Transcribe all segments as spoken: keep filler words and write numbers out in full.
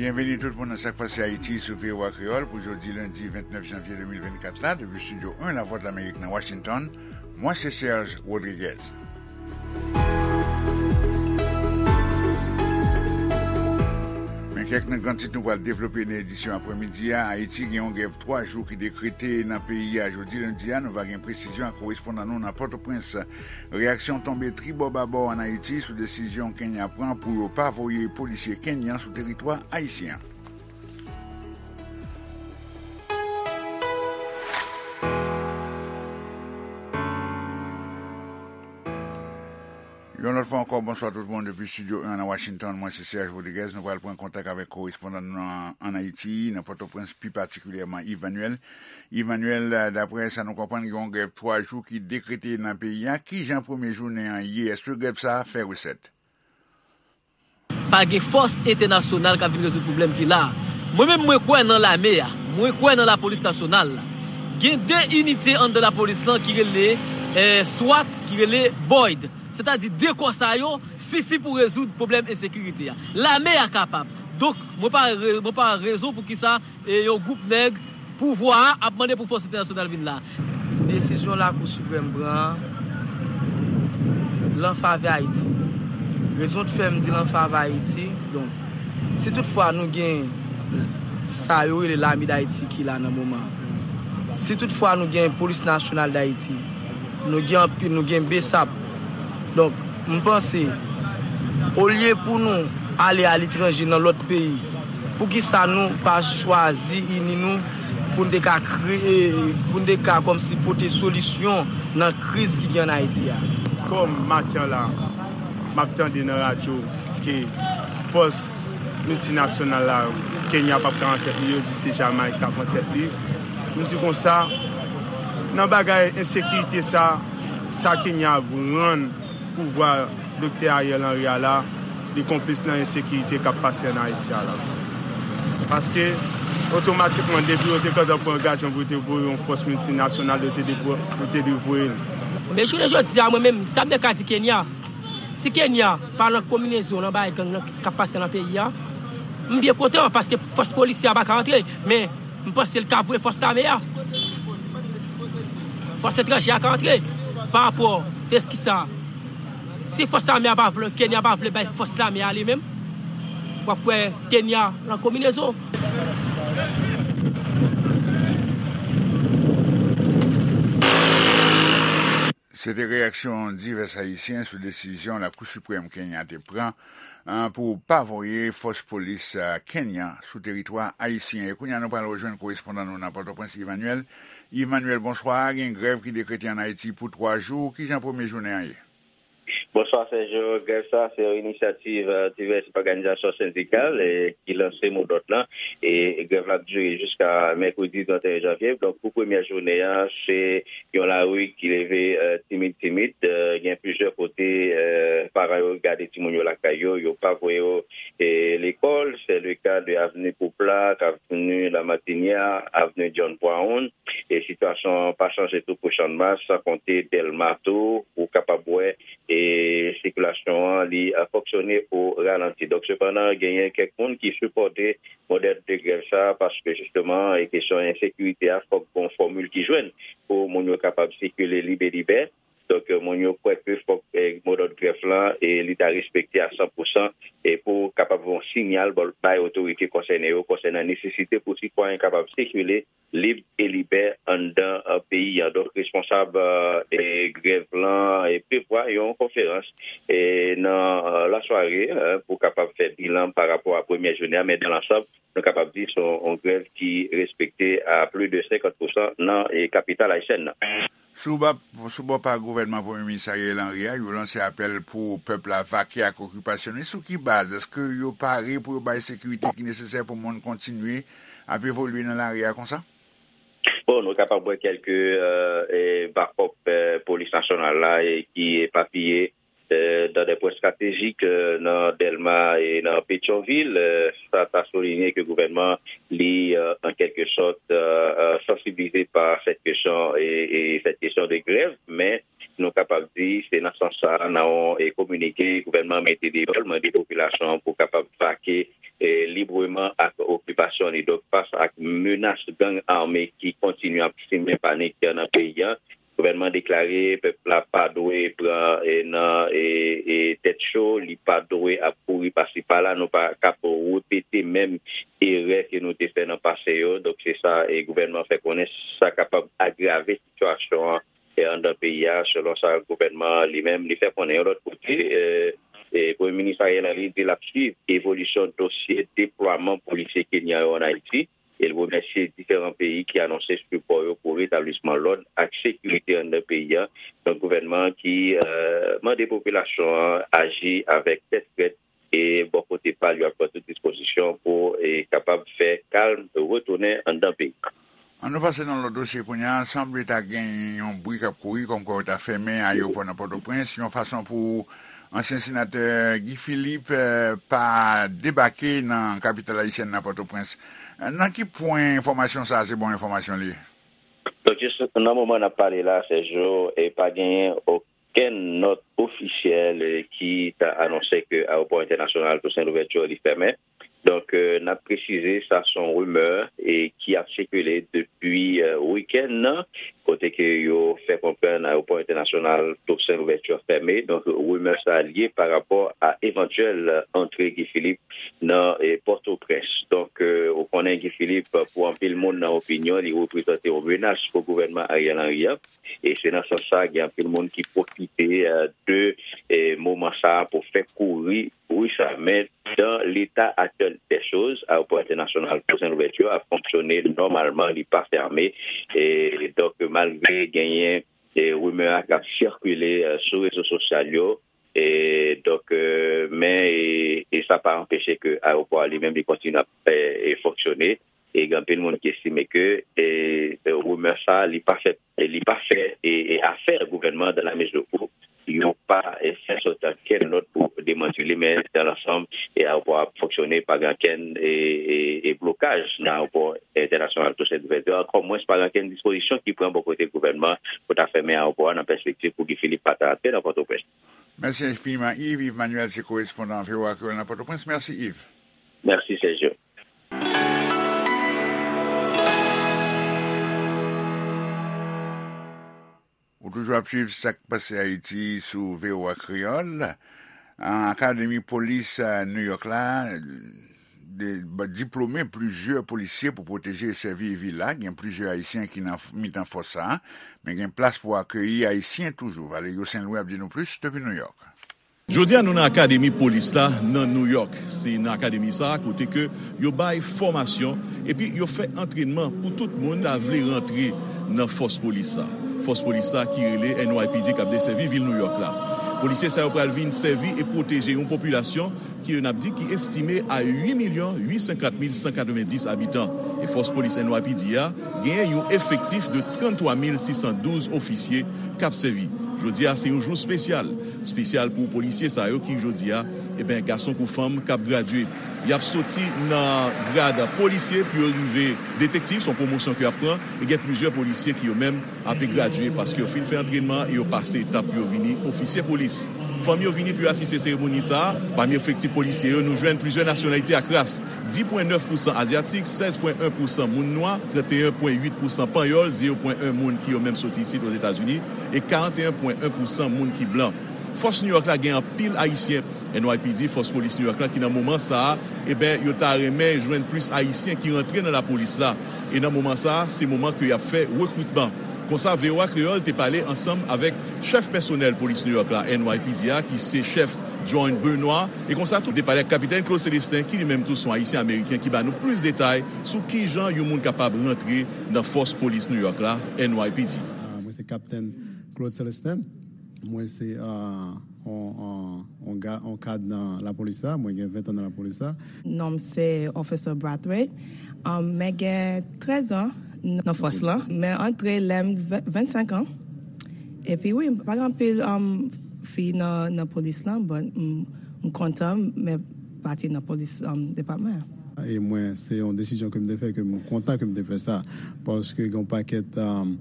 Byenveni tout moun nan Sa k Pase Ayiti sou V O A Kreyòl pou jodi lendi vennèf janvye de mil vennkat la, depi Estidyo en Lavwadlamerik nan Washington. Mwen se Serge Rodriguez. Men kèk nan gran tit nou pral devlope nan edisyon aprèmidi a. Ayiti gen yon grèv twa jou ki dekrete nan peyi a jodi lendi a. Nou va gen presizyon ak korespondan nou nan Pòtoprens. Reyaksyon tonbe tribò babò ann Ayiti sou desizyon Kenya pran pou yo pa voye polisye kenyan sou teritwa ayisyen an. Yon lòt fwa ankò, bonswa tout moun depi Estidyo en nan Washington. Mwen se Serge Rodriguez. Nou pral pran kontak avèk korespondan nou an, ann Ayiti, nan Pòtoprens, pi patikilyèman Yves Manuel. Yves Manuel, daprè sa nou konprann, gen yon grèv twa jou ki dekrete nan peyi a. Kijan premye jounen an ye? Èske grèv sa a fè resèt? Pa gen fòs entènasyonal k ap vin rezoud pwoblèm ki la a. Mwen menm, mwen kwè nan lame a. Mwen kwè nan lapolis nasyonal la. Gen de inite anndan lapolis lan ki rele, eh, swat, ki rele boyd. Sètadi de kò sa yo sifi pou rezoud pwoblèm ensekirite a. Lame a kapab. Donk, mwen pa re-, mwen pa wè rezon poukisa e yon gwoup nèg pouvwa a ap mande pou fòs entènasyonal vin la. Desizyon Lakou Siprèm pran an, l an favè Ayiti. Rezon k fè m di l an favè Ayiti, donk, si toutfwa nou gen sa yo rele Lame d Ayiti ki la nan moman an, si toutfwa nou gen Polis Nasyonal d Ayiti, nou gen anpil, nou gen BSAP. Donk, m panse, olye pou nou ale aletranje nan lòt peyi, poukisa nou pa chwazi ini nou pou n te ka kreye, pou n te ka kòmsi pote solisyon nan kriz ki gen ann Ayiti a? Kòm maten la, m ap tande nan radyo ke fòs miltinasyonal la, Kenya p ap ka an tèt li, yo di se Jamayik k ap an tèt li. M di konsa, nan bagay ensekirite sa, sa Kenya rann pouvwa Doktè Ariel Henry a la, li konplis nan ensekirite k ap pase ann Ayiti a la. Paske, otomatikman, depi yo te gentan pran angasman pou yo te voye yon fòs miltinasyonal, yo te dwe, yo te dwe voye l. Men jounen jodi a, mwen menm, sa m te ka di Kenya, si Kenya pa nan konbinezon nan bagay gang nan k ap pase nan peyi a, m byen kontan, paske fòs polisye a pa ka antre, men m panse l ka voye fòs lame a. Fòs etranje a ka antre. Pa rapò, eski sa, si fòs lame a pa vle, Kenya pa vle bay fòs lame a li menm, w ap wè Kenya nan konbinezon. Se te reyaksyon divès Ayisyen sou desizyon Lakou Siprèm Kenya te pran, ah, pou pa voye fòs polis, ah, Kenya sou teritwa ayisyen. E kounye a, nou pral rejwenn korespondan nou nan Pòtoprens, Yves Manuel. Yves Manuel, bonswa. Gen grèv ki dekrete ann Ayiti pou twa jou. Kijan premye jounen an ye? Bonswa, Sergio. Grèv sa, se yon inisyativ, eh, divès òganizasyon sendikal, eh, ki lanse modòd lan. E grèv la ap dire jiska mèkredi trannteyen janvye. Donk, pou premyè jounen an, se yon lari ki leve, eh, timid, timid. Eh, gen plizyè kote, eh, paran yo gade timoun yo lakay yo, yo pa voye yo, eh, lekòl. Se le ka de Avenue Pouplak, Avenue Lamartinière, Avenue John Brown. E sitiyasyon an pa chanje tou pou Channmas, san konte Dèlma tou, ou kapab wè, e sikilasyon an, li, a, fonksyone o ralanti. Donk, sepandan, genyen kèk moun ki sipòte modèl de grèv sa a, paske, jisteman, e kesyon ensekirite a, fòk gon fòmil ki jwenn pou moun yo kapab sikile lib e libè. Donk, moun yo kwè ke fòk, e, modòd grèv lan, e, li ta respekte a san pou san, e pou kapab yon siyal bay otorite konsène yo konsènan nesesite pou sitwayen kapab sikile lib e libè anndan, eh, peyi a. Donk, responsab, eh, e grèv lan, e prevwa yon konferans, e nan, eh, lasware, eh, pou kapab fè bilan pa rapò a premyè jounen an, men dan lansanm, nou kapab di se yon, yon grèv ki respekte a plis de senkant pou san nan, e kapital ayisyèn nan. Sou ba-, sou bò pa gouvènman Premye Minis Ariel Henry a, yo lanse apèl pou pèp la vake ak okipasyon li. Sou ki baz? Èske yo pare pou yo bay sekirite ki nesesè pou moun kontinye ap evolye nan lari a konsa? Bon, nou kapab wè kèlke, eh, eh, bakòp, eh, polis nasyonal la, eh, ki epapiye, eh, dans des points stratégiques, eh, nan Dèlma e nan Petyonvil. Eh, sa ta soulinye ke gouvènman li, eh, an kèlke sòt, eh, eh, sansibilize pa sèt kesyon e, e sèt kesyon de grèv, men nou kapab di se nan sans sa, nan yon, e kominike gouvènman mete deyò, l mande popilasyon an pou kapab vake, e e, libreman ak okipasyon li. Donk, fas ak menas gang ame ki kontinye ap simen panik nan peyi a, gouvènman deklare pèp la pa dwe pran, e, nan, e, e, tèt cho, li pa dwe ap kouri pasi pala. Nou pa kap repete menm erè ke nou te fè nan pase yo. Donk, se sa, e, gouvènman fè konnen sa kapab agrave sitiyasyon an, e, anndan peyi a, selon sa gouvènman an li menm li fè konnen. Yon lòt kote, e, e, Premye Minis Ariel Henry di l ap swiv evolisyon dosye deplwaman polisye kenyan yo ann Ayiti, e l remèsye diferan peyi ki anonse sipò yo pou retablisman lòd ak sekirite anndan peyi a. Donk, gouvènman an ki, e, mande popilasyon an aji avèk tèt frèt, e bò kote pa l, yo ap pran tout dispozisyon pou, e, kapab fè kalm retounen anndan peyi a. Ann nou pase nan lòt dosye kounye a. Sanble ta gen yon bri k ap kouri kòmkwa yo ta fèmen ayewopò nan Pòtoprens, yon fason pou ansyen senatè Guy Philippe, eh, pa debake nan kapital ayisyèn nan, Pòtoprens. Nan ki pwen enfòmasyon sa a se bon enfòmasyon li ye? Donk, jis nan moman n ap pale la, Sergio, e pa genyen okenn nòt ofisyèl, eh, ki ta anonse ke ayewopò entènasyonal Toussaint Louverture li fèmen. Donk, eh, n ap presize, sa se yon rimè, eh, ki ap sikile depi, eh, wikenn nan, kote ke yo fè konprann ayewopò entènasyonal Toussaint Louverture fèmen. Donk, rimè sa a li ye pa rapò a evantyèl antre Guy Philippe nan, eh, Pòtoprens. Donk, eh, ou konnen Guy Philippe, pou anpil moun nan opinyon, li reprezante yon menas pou gouvènman Ariel Henry an. E se nan sans sa, gen anpil moun ki pwofite, eh, de, eh, moman sa a pou fè kouri bri sa. Men, dan leta aktyèl dè choz, ayewopò entènasyonal Toussaint Louverture ap fonksyone nòmalman, li pa fèmen. E donk, malgre genyen, eh, rimè a k ap sikile, eh, sou rezo sosyal yo, e donk, eh, men, e, e sa pa anpeche ke ayewopò a li menm li kontinye ap, eh, eh, fonksyone. E gen anpil moun ki estime ke, e, e, rimè sa a, li pa fè, li pa fè, e, e, afè gouvènman, dans la mesure où yo pa, e, fè sòti ankenn nòt pou demanti li, men dans l'ensemble, e, ayewopò a ap fonksyone, pa gen ankenn, e, e, e, blokaj nan ayewopò entènasyonal Toussaint Louverture, ankò mwens pa gen ankenn dispozisyon ki pran bò kote gouvènman pou ta fèmen ayewopò a nan pèspektiv pou Guy Philippe pa ta antre nan Pòtoprens. Mèsi enfiniman, Yves. Yves Manuel se korespondan V O A Kreyòl nan Pòtoprens. Mèsi, Yves. Mèsi, Sergio. Ou toujou ap swiv Sa k Pase Ayiti sou V O A Kreyòl. Akademi Polis, eh, New York la, de, ba, diplome plizyè polisye pou pwoteje e sèvi vil la. Gen plizyè Ayisyen ki nan f-, mitan fòs sa a, men gen plas pou akeyi Ayisyen toujou. Valerio Saint Louis ap di nou plis depi New York. Jodi a, nou nan Akademi Polis la, nan New York. Se nan akademi sa a, kote ke yo bay fòmasyon, epi yo fè antrènman pou tout moun ta vle rantre nan fòs polis la. Fòs polis la ki rele N Y P D k ap desèvi vil New York la. Polisye sa yo pral vin sèvi e pwoteje yon popilasyon ki yo n ap di ki estime a uit milyon uit san kat mil san katrevenndis abitan. E fòs polis N Y P D a genyen yon efektif de tranntwa mil sis san douz ofisye k ap sèvi. Jodi a, se yon jou espesyal. Espesyal pou polisye sa yo ki, jodi a, eben, gason kou fanm, k ap gradye. Y ap soti nan grad polisye pou yo rive detektiv, se yon pwomosyon ke y ap pran. E gen plizyè polisye ki yo menm ape gradye paske yo fin fè antrènman e yo pase etap pou yo vini ofisye polis. Fanmi yo vini pou yo asiste seremoni sa a. Pami efektif polisye yo, nou jwenn plizyè nasyonalite ak ras. Dis pwen nèf pousan azyatik, sèz pwen en pousan moun nwa, trannteyen pwen uit pousan panyòl, zewo pwen en moun ki yo menm soti isit Ozetazini, e karanteyen pwen en pousan moun ki blan. Fòs New York la gen anpil Ayisyen. N Y P D, fòs polis New York la, ki nan moman sa a, eben, yo ta renmen jwenn plis Ayisyen ki rantre nan lapolis la. E nan moman sa a, se moman ke y ap fè rekritman. Konsa, V O A Kreyòl te pale ansanm avèk chèf pèsonèl polis New York la, N Y P D a, ki se chèf John Benoit. E konsa tou, te pale ak Kapitèn Claude Célestin, ki li menm tou se yon Ayisyen Ameriken, ki ba nou plis detay sou kijan yon moun kapab rantre nan fòs polis New York la, N Y P D. Ah, mwen se Kapitèn Claude Célestin. Mwen se, ah, on, on, on ga-, on kad nan lapolis la. Mwen gen ven tan nan lapolis la. Non m se Officer Brathwaite. Um, mwen gen trèz an nan fòs lan. Mwen antre lè m ven-, vennsenk an. Epi wi, pa gen anpil, um, fi nan, nan polis lan, but m, m kontan mwen pati nan polis, um, depatman an. E mwen, se yon desizyon ke m te fè, ke m kontan ke m te fè sa. Paske gen yon pakèt, um,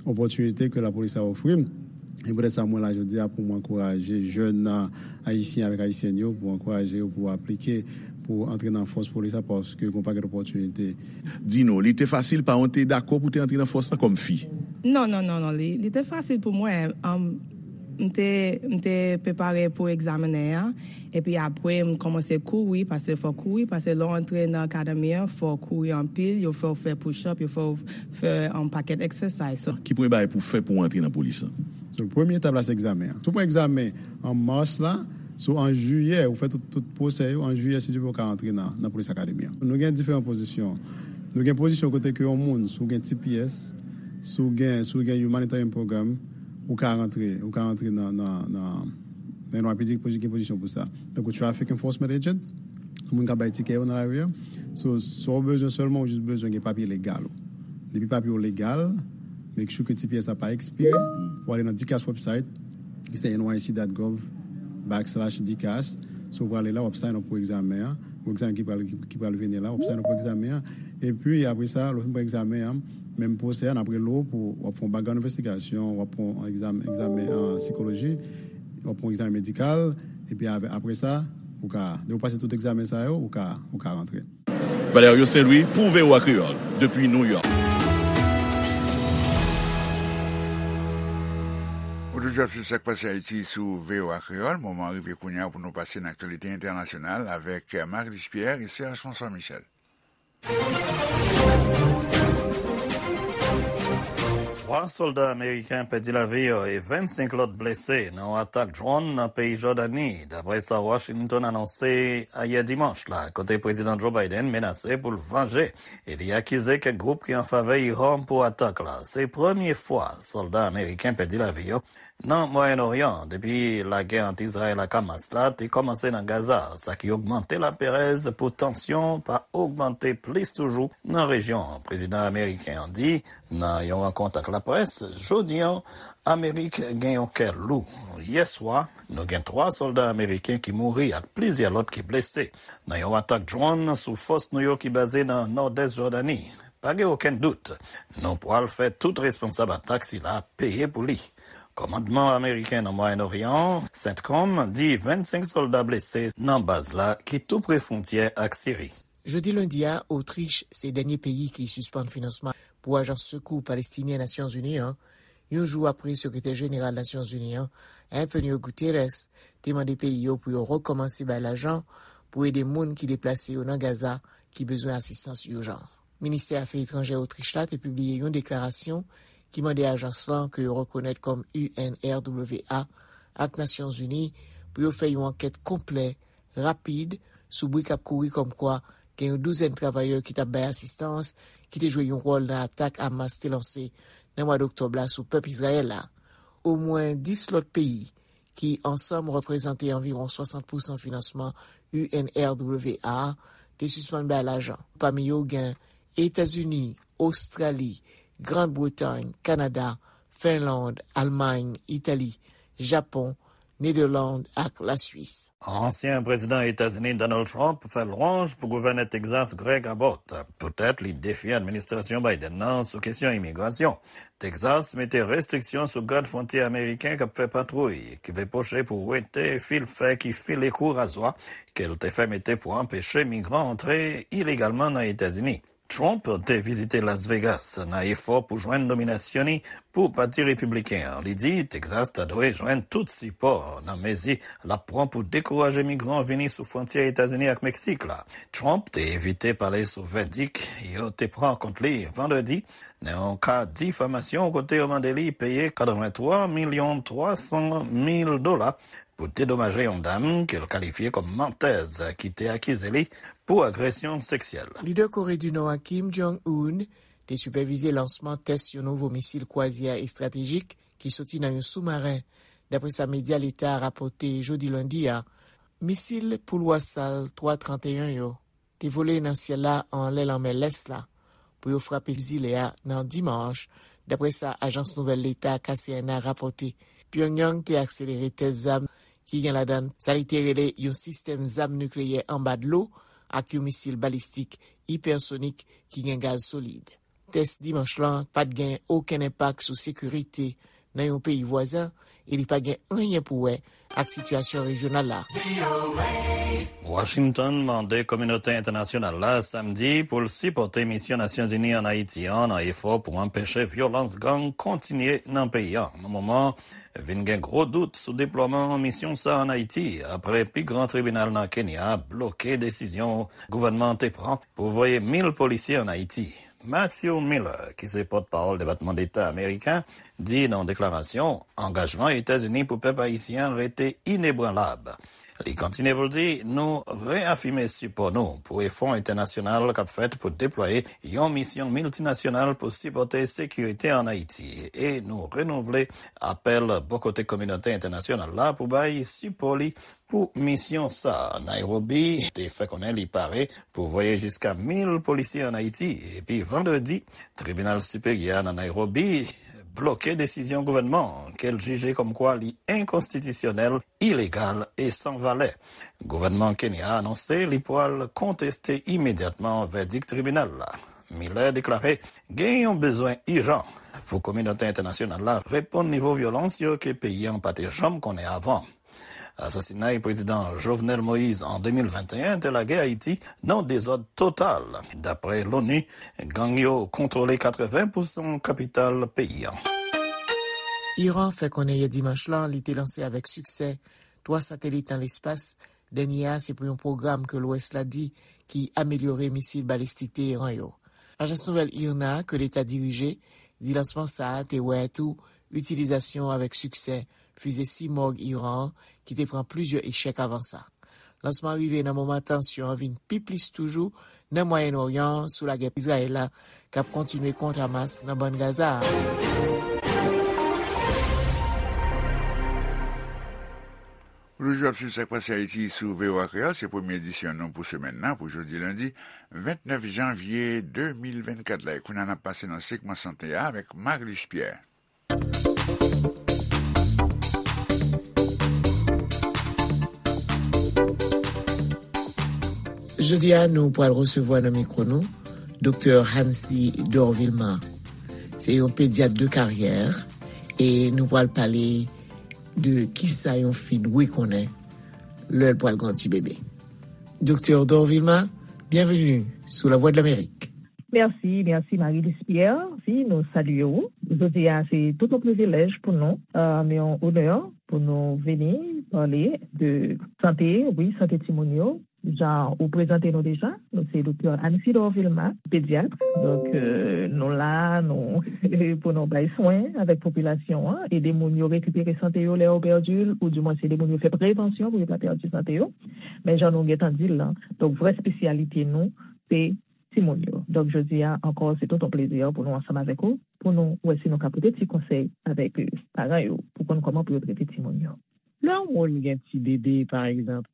opòtinite ke lapolis la ofri m. E poutèt sa, mwen la jodi a pou m ankouraje jèn, uh, ayisyen avèk ayisyèn yo, pou ankouraje yo pou aplike pou antre nan fòs polis la, paske gen yon pakèt opòtinite. Di nou, li te fasil, paran w te dakò pou te antre nan fòs la kòm fi? Non, non, non, non, li, li te fasil pou mwen. Um, m te, m te prepare pou egzamen an, epi apre m kòmanse kouri, paske fò kouri, paske lè w antre nan akademi an, fò kouri anpil, yo fè w fè push-up, yo fè w fè yon pakèt exercise. So, ki premye bagay pou w fè pou w antre nan polis la? So, premye etap la, se egzamen an. Si w pran egzamen an mas la, so, an jiyè, ou fè tout, tout pwosè yo, an jiyè, si Dye vle, ou ka antre nan, nan polis akademi an. Nou gen diferan pozisyon. Nou gen pozisyon kote ke yon moun, si w gen T P S, si w gen, si w gen Humanitarian Program, ou ka rantre, ou ka rantre nan, nan, nan, nan yon rapid gen pozisyon pou sa. Tankou traffic enforcement agent, moun k ap bay tikè yo nan lari a. So, sa w bezwen sèlman, ou jis bezwen gen papye legal ou. Depi papye w legal, make sure ke T P S la pa ekspire, ou ale nan DCAS website, ki se N Y C dot gov backslash DCAS. So, ou prale la, w ap sign up pou egzamen an, pou egzamen ki pral, ki, ki pral vini la, w ap sign up pou egzamen an. Epi, apre sa, lè w fin pran egzamen an, menm pwosè a, n ap rele w pou w ap fè yon background investigation, w ap fè yon egzamen, egzamen an sikoloji, w ap fè yon egzamen medikal, epi apre, apre sa, ou ka, lè w pase tout egzamen sa yo, ou ka, ou ka rantre. Valerio Saint-Louis pou V O A Kreyòl, depi New York. Ou toujou ap swiv Sa k Pase Ayiti sou V O A Kreyòl. Moman an rive kounye a pou nou pase nan aktyalite entènasyonal avèk Marie-Luce Pierre e Serge François Michel. Twa sòlda ameriken pèdi lavi yo e vennsenk lòt blese nan yon atak dwòn nan peyi Jòdani, dapre sa Washington anonse ayè dimanch la, kote Prezidan Joe Biden menase pou l vanje e li akize kèk gwoup ki an favè Iran pou atak la. Se premye fwa sòlda ameriken pèdi lavi yo nan Mwayen Oryan depi lagè ant Izrayèl ak Hamas la te kòmanse nan Gaza, sa ki ogmante laperèz pou tansyon pa ogmante plis toujou nan rejyon an. Prezidan ameriken an di nan yon rankont ak laprès jodi an, Amerik gen yon kè lou. Yè swa, nou gen twa sòlda ameriken ki mouri ak plizyè lòt ki blese nan yon atak dwòn sou fòs nou yo ki baze nan nòdès Jòdani. Pa gen okenn dout, nou pral fè tout responsab atak sila peye pou li. Kòmandman ameriken nan Mwayen Oryan, CENTCOM, di vennsenk sòlda blese nan baz la ki tou pre fwontyè ak Siri. Jodi lendi a, Otrich se dènye peyi ki sispann finansman pou ajans sekou palestinyen Nasyonzini an, yon jou apre Sekretè Jeneral Nasyonzini an, Antonio Guterres, te mande peyi yo pou yo rekòmanse bay lajan pou ede moun ki deplase yo nan Gaza ki bezwen asistans ijan. Ministè Afè Etranjè Otrich la te pibliye yon deklarasyon ki mande ajans lan ke yo rekonèt kòm U N R W A ak Nasyonzini pou yo fè yon ankèt konplè, rapid, sou bri k ap kouri kòmkwa gen yon douzèn travayè ki t ap bay asistans ki te jwe yon wòl nan atak Hamas te lanse nan mwa doktòb la sou pèp Izrayèl la. Omwen dis lòt peyi ki ansanm reprezante anviwon swasant pousan finansman U N R W A a, te sispann bay lajan. Pami yo gen Etazini, Ostrali, Grann Bretay, Kanada, Finland, Almay, Itali, Japon, Nederland ak Laswis. Ansyen prezidan Etazini Donald Trump fè lwanj pou gouvènè Texas Greg Abbott poutèt li defye administrasyon Biden nan sou kesyon imigrasyon. Texas mete restriksyon sou gad fwontyè ameriken k ap fè patwouy, ki vle poche pou wete fil fè ki file kou razwa ke l te fè mete pou anpeche migran antre ilegalman nan Etazini. Trump te vizite Las Vegas nan efò pou jwenn nominasyon li pou Pati Repibliken an. Li di Texas ta dwe jwenn tout sipò nan mezi l ap pran pou dekouraje migran vini sou fwontyè Etazini ak Meksik la. Trump te evite pale sou vèdik yo te pran kont li vandredi nan yon ka difamasyon kote yo mande li peye katrevenntwa milyon twasan mil dola pou dedomaje yon dam ke l kalifye kòm mantèz ki te akize li pou agresyon seksyèl. Lidè Kore di Nò a Kim Jong-un te sipèvize lansman tès yon nouvo misil kwazyè estratejik ki soti nan yon soumaren, dapre sa medya leta a rapòte jodi lendi a. Misil Pulwar Sal twa trannteyen yo te vole nan syèl la anlè lanmè Lès la pou yo frape zile a nan dimanch, dapre sa ajans nouvèl leta K C N A rapòte. Pyongyang te akselere tès zam ki gen ladan l sa li te rele yon sistèm zam nikleyè anba dlo ak yon misil balistik ipèsonik ki gen gaz solid. Tès dimanch lan pa t gen okenn enpak sou sekirite nan yon peyi vwazen e li pa gen anyen pou wè ak sitiyasyon rejyonal la. Washington mande kominote entènasyonal la samdi pou l sipòte misyon Nasyonzini ann Ayiti an nan efò pou anpeche vyolans gang kontinye nan peyi an. Nan moman, vin gen gwo dout sou deplwaman misyon sa ann Ayiti, apre pi gran tribinal nan Kenya bloke desizyon gouvènman an te pran pou voye mil polisye ann Ayiti. Matthew Miller, ki se pòtpawòl Depatman Deta ameriken, di nan yon deklarasyon, angajman Etazini pou pèp ayisyen an rete inebranlab. Li kontinye pou l di, nou reyafime sipò nou pou efò entènasyonal k ap fèt pou deplwaye yon misyon miltinasyonal pou sipòte sekirite ann Ayiti, e nou renouvle apèl bò kote kominote entènasyonal la pou bay sipò li pou misyon sa a. Nairobi te fè konnen li pare pou voye jiska mil polisye ann Ayiti, epi vandredi, tribinal siperyè a nan Nairobi bloke desizyon gouvènman an ke l jije kòmkwa li enkonstitisyonèl, ilegal e san valè. Gouvènman Kenya a anonse li pral konteste imedyatman vèdik tribinal la. Miller deklare gen yon bezwen ijan pou kominote entènasyonal la reponn nivo vyolans yo ke peyi an pa te janm konnen avan. Asasinay Prezidan Jovenel Moïse an de mil venteyen te lage Ayiti nan dezòd total. Dapre l'ONU, gang yo kontwole katreven pousan kapital peyi an. Iran fè konnen yè dimanch lan li te lanse avèk siksè twa satelit nan lespas. Dènye a se pou yon pwogram ke Lwès la di ki amelyore misil balistik Teheran yo. Ajans nouvèl IRNA ke Leta dirije di lansman sa a te wè tou itilizasyon avèk siksè fize Simorgh Iran an ki te pran plizyè echèk avan sa. Lansman an rive nan moman tansyon an vin pi plis toujou nan Mwayen Oryan an sou lagè Izrayèl la k ap kontinye kont Hamas nan Bann Gaza a. Ou toujou ap swiv Sa k Pase Ayiti sou V O A Kreyòl. Se premye edisyon nou pou semèn nan, pou jodi lendi vennèf janvye de mil vennkat la. E kounye a, n ap pase nan segman sante a avèk Marilus Pierre. Jodi a, nou pral resevwa nan mikwo nou Doktè Hancy Dorvilma. Se yon pedyat de karyè e nou pral pale de kisa yon fi dwe konnen lè l pral gen yon ti bebe. Doktè Dorvilma, byenveni sou Lavwadlamerik. Mèsi, mèsi Marie Lispière. Si, nou salye w. Jodi a, se tout yon privilèj pou nou, euh, yon onè pou nou vini pale de sante, wi, sante timoun yo. Jan ou prezante nou deja, nou se Doktè Anne Sidor Vilma, pedyat. Donk, euh, nou la, nou, pou nou bay swen avèk popilasyon an, ede moun yo rekipere sante yo lè yo pèdi l, ou dimwen se ede moun yo fè prevansyon pou yo pa pèdi sante yo. Men jan nou gentan di l lan, donk vrè espesyalite nou, se timoun yo. Donk, jodi a ankò, se tout yon plezi pou nou ansanm avèk ou, pou nou wè si nou ka pote ti konsèy avèk, euh, paran yo, pou konn kòman pou yo trete timoun yo. Lè yon moun gen ti bebe, pa egzanp,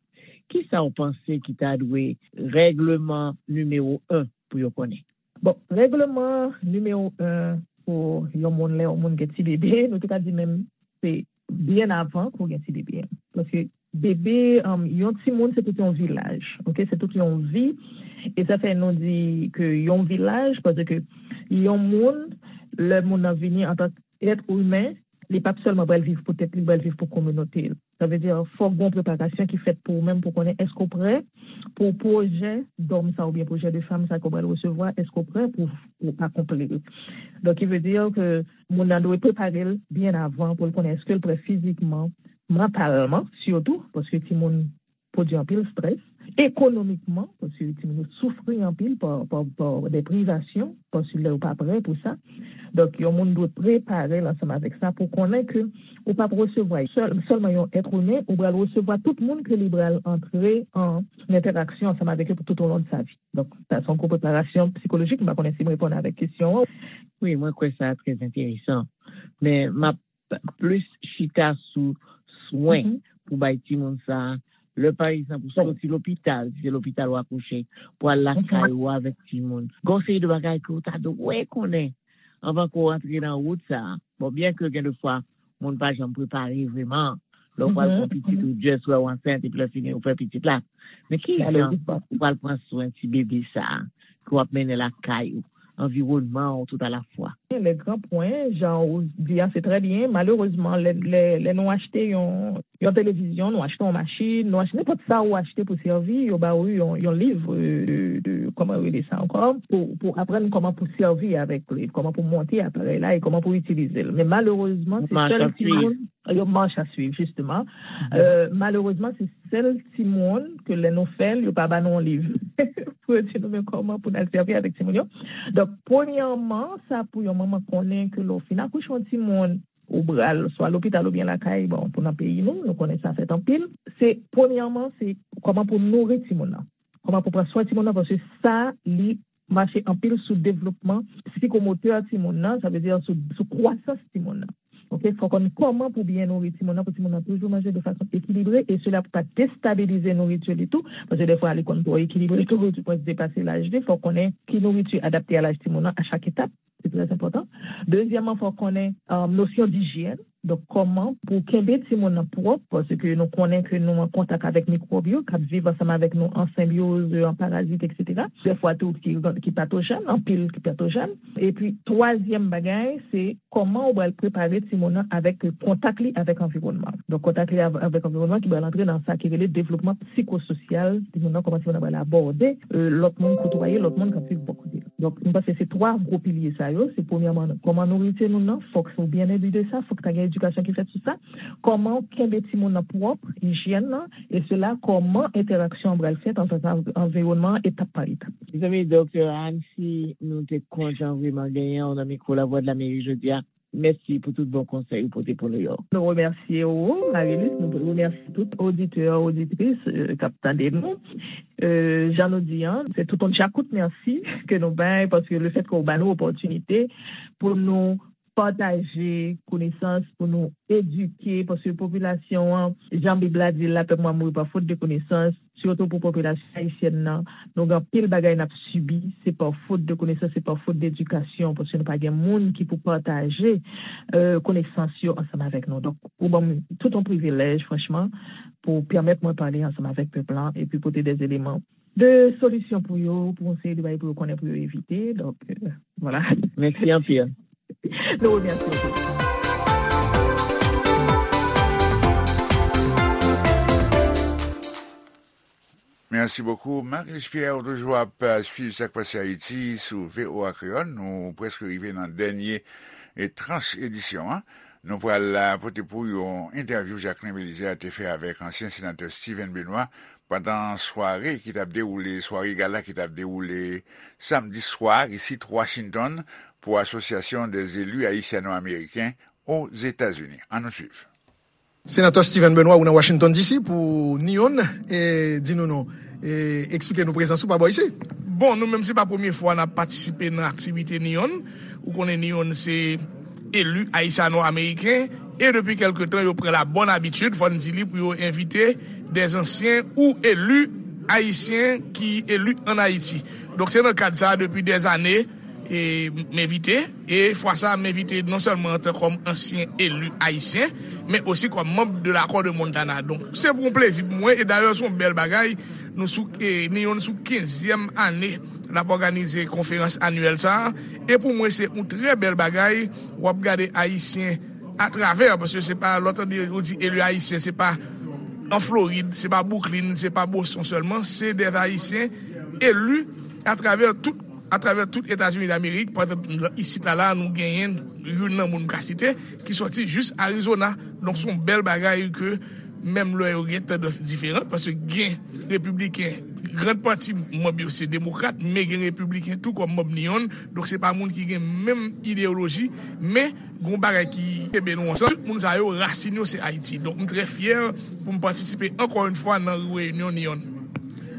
kisa w panse ki ta dwe règleman nimewo en pou yo konnen? Bon, règleman nimewo en pou yon moun, lè yon moun gen ti bebe, nou te ka di menm se byen avan ke w gen ti bebe. Paske bebe, um, yon timoun, se tout yon vilaj, oke? Se tout yon vi. E sa fè nou di ke yon vilaj, paske yon moun, lè moun nan vini antanke èt imen, li p ap sèlman pral viv pou tèt li, li pral viv pou kominote l. Sa vle di, fòk gen yon preparasyon ki fèt pou ou menm, pou konnen èske w prè pou pwojè dòm sa oubyen pwojè de fanm sa ke w pral resevwa, èske w prè pou, pou akonpli l. Donk, ki vle di ke moun nan dwe prepare l byen avan pou l konnen èske l prè fizikman, mantalman, sitou, paske timoun pwodui anpil estrès, ekonomikman, paske timoun yo soufri anpil pa, pa, pa de privasyon, paske lè yo pa prè pou sa. Donk, yon moun dwe prepare l ansanm avèk sa pou konnen ke ou p ap resevwa sèl, sèlman yon èt imen, ou pral resevwa tout moun ke li pral antre an entèraksyon ansanm avèk yo pou tout au long de sa vie. Donk, sa se yon gwo preparasyon sikolojik. M pa konnen si m reponn avèk kesyon an. Wi, mwen kwè sa trè enteresan. Men m ap plis chita sou swen pou bay timoun sa a. Lè, pa egzanp, ou soti lopital, si se lopital w akouche, pou al lakay ou avèk timoun. Gen yon seri de bagay ke w ta dwe konnen anvan ke w antre nan wout sa a. Bon, byen ke gen de fwa, moun pa janm prepare vrèman. Lè w pral pran pitit, ou just wè w ansent, epi lè fini, ou fè pitit la. Men ki jan ou pral pran swen ti bebe sa a, ke w ap mennen lakay ou? anviwònman an tout alafwa. Le gran pwen, jan ou di a, se trè byen. Malerezman, lè, lè, lè nou achte yon, yon televizyon, nou achte yon machin, nou achte nenpòt sa ou achte pou sèvi, yo ba ou yon, yon liv, euh, de, de, kòman yo rele sa ankò, pou, pou aprann kòman pou sèvi avèk li, kòman pou monte aparèy la e kòman pou itilize l. Men malerezman, se sèl timoun, yon manch a swiv, jisteman. Euh, malerezman, se sèl timoun ke lè nou fè l, yo pa ba nou yon liv. Pou yo di nou, men kòman pou n al sèvi avèk timoun yo. Donk, premyèman, sa pou yon manman konnen ke lè w fin akouche yon timoun, ou pral swa lopital oubyen lakay, bon, pou nan peyi nou, nou konnen sa fèt anpil. Se, premyèman, se kòman pou nouri timoun nan. Kòman pou pran swen timoun nan, paske sa, li mache anpil sou devlopman sikomotè timoun nan, sa vle di sou, sou kwasans timoun nan. Oke, fò konn kòman pou byen nouri timoun nan, pou timoun nan toujou manje de fason ekilibre, e sela pou pa destabilize nouriti li tou, paske defwa li konn twò ekilibre tou, ou di mwen depase laj li, fò konnen ki nouriti adapte a laj timoun nan a chak etap, se trè enpòtan. Dezyèmman, fò konnen, euh, nosyon dijyèn, donk kòman pou kenbe timoun nan pwòp, paske nou konnen ke nou an kontak avèk mikwòb yo, k ap viv ansanm avèk nou an senbyoz, an parazit, etsetera. Defwa tou ki, ki patojèn, anpil ki patojèn. Epi, twazyèm bagay, se kòman ou pral prepare timoun nan avèk kontak li avèk anviwònman. Donk, kontak li av-, avèk anviwònman ki pral antre nan sa ki rele devlopman psikososyal timoun nan, kòman timoun nan pral abòde, euh, lòt moun, koutwaye lòt moun k ap viv bò kote l. Donk, m panse se twa gwo pilye sa yo. Se premyèman, kòman nouri timoun nan, fòk ou byen enbi de sa, fòk ta gen edikasyon ki fèt sou sa. Kòman kenbe timoun nan pwòp, ijyèn nan, e sela kòman entèraksyon an pral fèt ansanm avèk anviwònman an etap pa etap. Mezanmi, Doktè Anne, si nou te kontan vrèman genyen w nan mikwo Lavwadlamerik jodi a, mèsi pou tout bon konsèy ou pote pou nou yo. Nou remèsye ou, Marilus, nou remèsye tout oditè, oditris, euh, k ap tande nou. Euh, jan nou di an, se tout yon djakout mèsi ke nou bay, paske lefètke w ba nou opòtinite pou nou pataje konesans, pou nou edike, paske popilasyon an, jan Bib la di l la, pèp mwen ap mouri pa fot de konesans, sitou pou popilasyon ayisyèn nan, nou gen anpil bagay n ap sibi, se pa fot de konesans, se pa fot de edikasyon, paske nou pa gen moun ki pou pataje, euh, konesans yo ansanm avèk nou. Donk, ou ban m tout yon privilèj, franchman, pou pèmèt mwen pale ansanm avèk pèp lan, epi pote de eleman de solisyon pou yo, pou yon seri de bagay pou yo konnen, pou yo evite. Donk, euh, vwala. Mèsi anpil. Nou remèsye w tou. Merci beaucoup. Marilus Pierre, ou toujou ap, euh, swiv sa k pase Ayiti sou V O A Kreyòl. Nou prèske rive nan dènye, e, tranch edisyon an. Nou pral, euh, pote pou yon entèvyou Jacquelin Belizaire te fè avèk ansyen senatè Steven Benoît pandan sware ki t ap dewoule, sware gala ki t ap dewoule samdi swa isit Washington pou Asosyasyon dè Zeli Ayisyano-Ameriken Ozetazini. Ann nou swiv. Senatè Steven Benoît, ou nan Washington D C pou NEON, e di nou non, e eksplike nou prezans ou pa bò isit. Bon, nou menm se pa premye fwa n ap patisipe nan aktivite NEON. Ou konnen NEON se eli ayisyano-ameriken, e depi kèlke tan yo pran la bòn abitid, fò n di li, pou yo envite dè ansyen ou eli ayisyen ki eli ann Ayiti. Donk se nan kad sa a depi dè ane, e m envite, e fwa sa a m envite non sèlman antan kòm ansyen eli ayisyen, men osi kòm manm de lakò de Montana. Donk se pou yon plezi pou mwen, e dayè se yon bèl bagay. Nou sou, e, NEON sou kenzyèm ane l ap òganize konferans anyèl sa a, e pou mwen se yon trè bèl bagay. W ap gade ayisyen atravè, paske se pa, lè w tande yo di eli ayisyen, se pa an Florid, se pa Brooklyn, se pa Boston sèlman, se dè ayisyen eli atravè tout, atravè tout Etazini Damerik. Pa egzanp, isit la, la, nou genyen youn nan moun m ka site, ki sòti jis Arizona. Donk, se yon bèl bagay ke menm lè yo gen tandans diferan, paske gen repibliken, grann pati manm yo se demokrat, men gen repibliken tou kòm manm NEON, donk se pa moun ki gen menm ideyoloji, men gen yon bagay ki kenbe nou ansanm. Tout moun sa yo, rasin yo se Ayiti. Donk, m trè fyè pou m patisipe ankò yon fwa nan reyinyon NEON.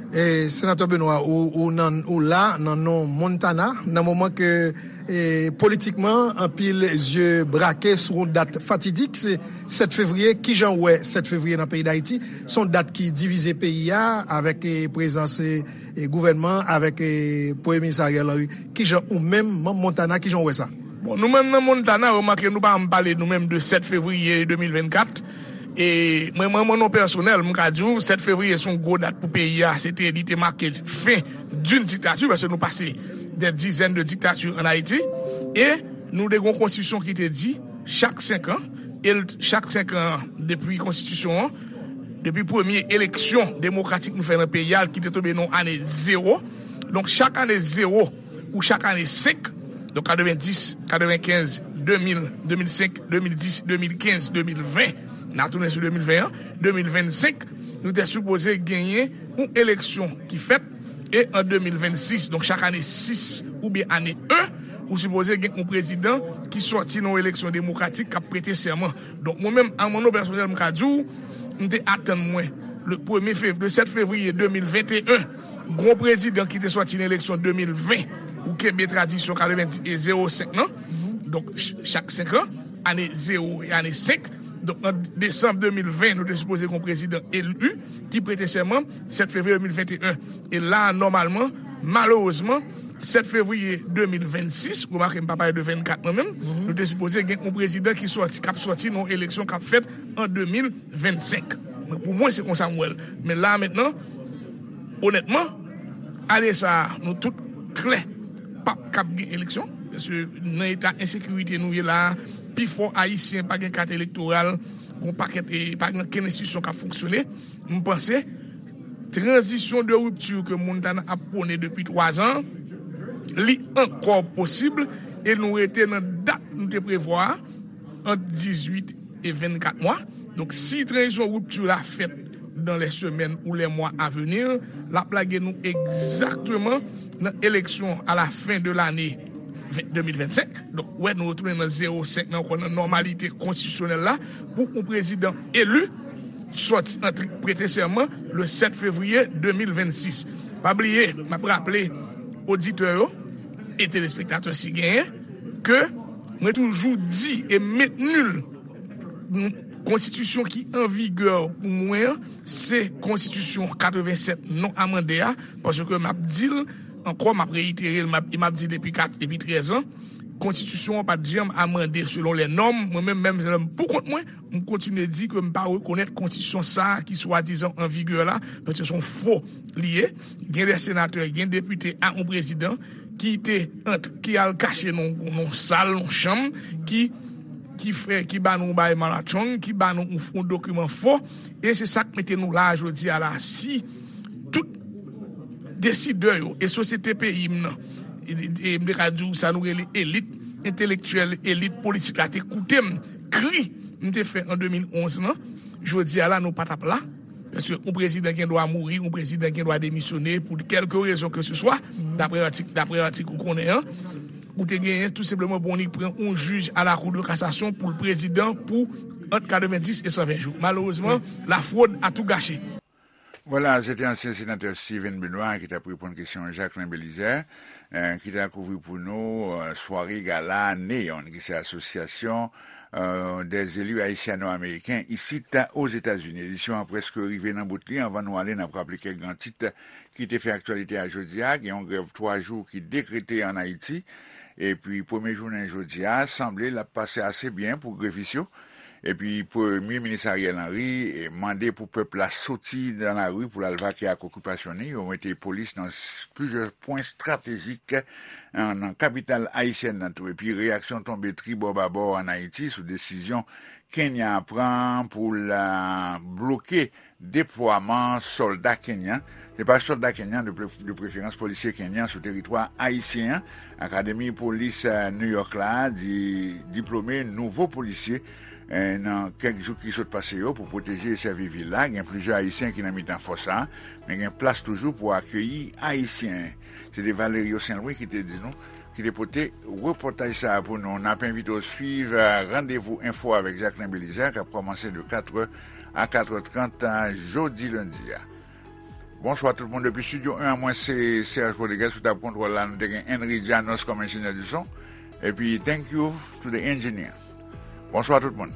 E, Senatè Benoît, ou, ou nan, ou la nan non Montana, nan moman ke, e, politikman, anpil zye brake sou yon dat fatidik, se sèt fevriye. Kijan w wè sèt fevriye nan peyi Dayiti? Se yon dat ki divize peyi a, avèk, e, prezans, e, e, gouvènman, avèk, e, Premye Minis Ariel Henry. Kijan ou menm, manm Montana, kijan w wè sa? Bon, nou menm nan Montana, remake nou pa janm pale nou menm de sèt fevriye de mil vennkat. E mwen, mwen, mwen, non pèsonèl, m ka di w, sèt fevriye se yon gwo dat pou peyi a. Se te, li te make fen d'une dictature, paske nou pase des dizaines de dictatures en Haïti, e nou te gen yon konstitisyon ki te di chak senk an, e l- chak senk an depi konstitisyon an, depi premye eleksyon demokratik nou fè nan peyi a, ki te tonbe nan ane zewo. Donk, chak ane zewo ou chak ane senk, donk katrevenndis, katrevenkenz, de mil, de mil senk, de mil dis, de mil kenz, de mil ven, n a tounen sou de mil ven an, de mil vennsenk, nou te sipoze genyen yon eleksyon ki fèt, e an de mil vennsis, donk chak ane sis oubyen ane en, ou sipoze gen yon prezidan ki sòti nan yon eleksyon demokratik k ap prete sèman. Donk, mwen menm, a mwen non pèsonèl, m ka di w, m te atann mwen, le premye fev- le sèt fevriye de mil venteyen, gon prezidan ki te sòti nan eleksyon de mil ven, ou kenbe tradisyon katrevenndis e zewo senk nan, donk ch- chak senk an, ane zewo e ane senk. Donk, an desanm de mil ven, nou te sipoze gon prezidan eli ki prete sèman sèt fevriye de mil venteyen. E la, nòmalman, malerezman, sèt fevriye de mil vennsis, remake m pa pale de vennkat mwen menm, nou te sipoze gen yon prezidan ki sòti, k ap sòti nan yon eleksyon k ap fèt an de mil vennsenk. Mwen, pou mwen, se konsa m wè l. Men la, mentnan, onètman, ane sa a, nou tout klè, p ap kab gen eleksyon. Paske nan eta ensekirite nou ye la a, pifò Ayisyen pa gen kat elektoral, gon pakèt, e pa gen okenn enstitisyon k ap fonksyone. M panse, tranzisyon de ripti ke Montana ap pwone depi twa zan, li ankò posib, e nou rete nan dat nou te prevwa a, ant dizuit e vennkat mwa. Donk, si tranzisyon ripti la fèt dans les semaines ou les mois à venir, l ap lage nou egzakteman nan eleksyon à la fin de l'année de mil vennsenk. Donk, wè, nou retounen nan zewo senk nan, ankò nan nòmalite konstitisyonèl la, pou yon prezidan eli sòti antre prete sèman le sèt fevriye de mil vennsis. Pa bliye, m ap raple oditè yo e telespektatè si genyen, ke mwen toujou di e mentni l, konstitisyon ki an vigè pou mwen an, se konstitisyon katrevensèt non amande a, paske m ap di l ankò, m ap reyitere l, m ap, e m ap di l depi kat, depi trèz an, konstitisyon an pa t janm amande selon lè nòm. Mwen menm, menm lè m pou kont mwen, m kontinye di ke m pa rekonèt konstitisyon sa a ki swadizan an vigè la, paske se yon fo li ye. Gen de senatè, gen depite a yon prezidan ki te ant, ki al kache nan yon sal, yon chanm, ki, ki fè, ki ba nou yon bagay malatchong, ki ba nou yon, yon dokiman fo, e se sa k mete nou la a jodi a la. Si tout desidè yo e sosyete peyi m nan, e, e m te ka di w sa nou rele elit entelektyèl, elit politik la te koute m, kri m te fè an de mil onz lan, jodi a la nou pa t ap la. Paske yon prezidan gen dwa mouri, yon prezidan gen dwa demisyone pou kèlke rezon ke se swa, dapre atik, dapre atik ou konnen an, ou te genyen tou senpleman bon li pran yon jij a la Cour de cassation pou l prezidan pou ant katrevendis e san ven jou. Malerezman, la fraude a tout gâché. Vwala, se te ansyen senatè Steven Benoît ki t ap reponn kesyon Jacquelin Belizaire, eh, ki t al kouvri pou nou, eh, sware gala NEON, ki se asosyasyon, eh, des élus haïtiano-américains isit Ozetazini. Edisyon an prèske rive nan bout li. Anvan nou ale, n ap raple kèk gran tit ki te fè aktyalite a jodi a. Gen yon grèv twa jou ki dekrete ann Ayiti. Epi premye jounen jodi a, sanble l ap pase ase byen pou grevis yo. Epi Premye Minis Ariel Henry, eh, mande pou pèp la soti nan lari pou l al vake ak okipasyon li. Yo mete polis nan s- plizyè pwen estratejik, eh, nan kapital ayisyèn nan tou. Epi reyaksyon tonbe tribò babò ann Ayiti sou desizyon Kenya pran pou l, eh, bloke deplwaman sòlda kenyan. Se pa sòlda kenyan, de pre- de preferans polisye kenyan sou teritwa ayisyen an. Akademi Polis, eh, New York la di, diplome nouvo polisye, eh, nan kèk jou ki sot pase yo pou pwoteje e sèvi vil la. Gen plizyè Ayisyen ki nan mitan fòs sa a, men gen plas toujou pou akeyi Ayisyen. Se te Valerio Saint Louis ki te di nou, ki te pote repòtaj sa a pou nou. N ap envite w swiv, eh, Randevou Enfo avèk Jacquelin Belizaire, k ap kòmanse de katrè a katrè trant, eh, jodi lendi a. Bonswa tout moun. Depi Studio en an, mwen se Serge Rodriguez sou tab kontwòl la. Nou te gen Henry Janos kòm enjenyè di son. Epi, thank you to the engineer. Bonswa tout moun.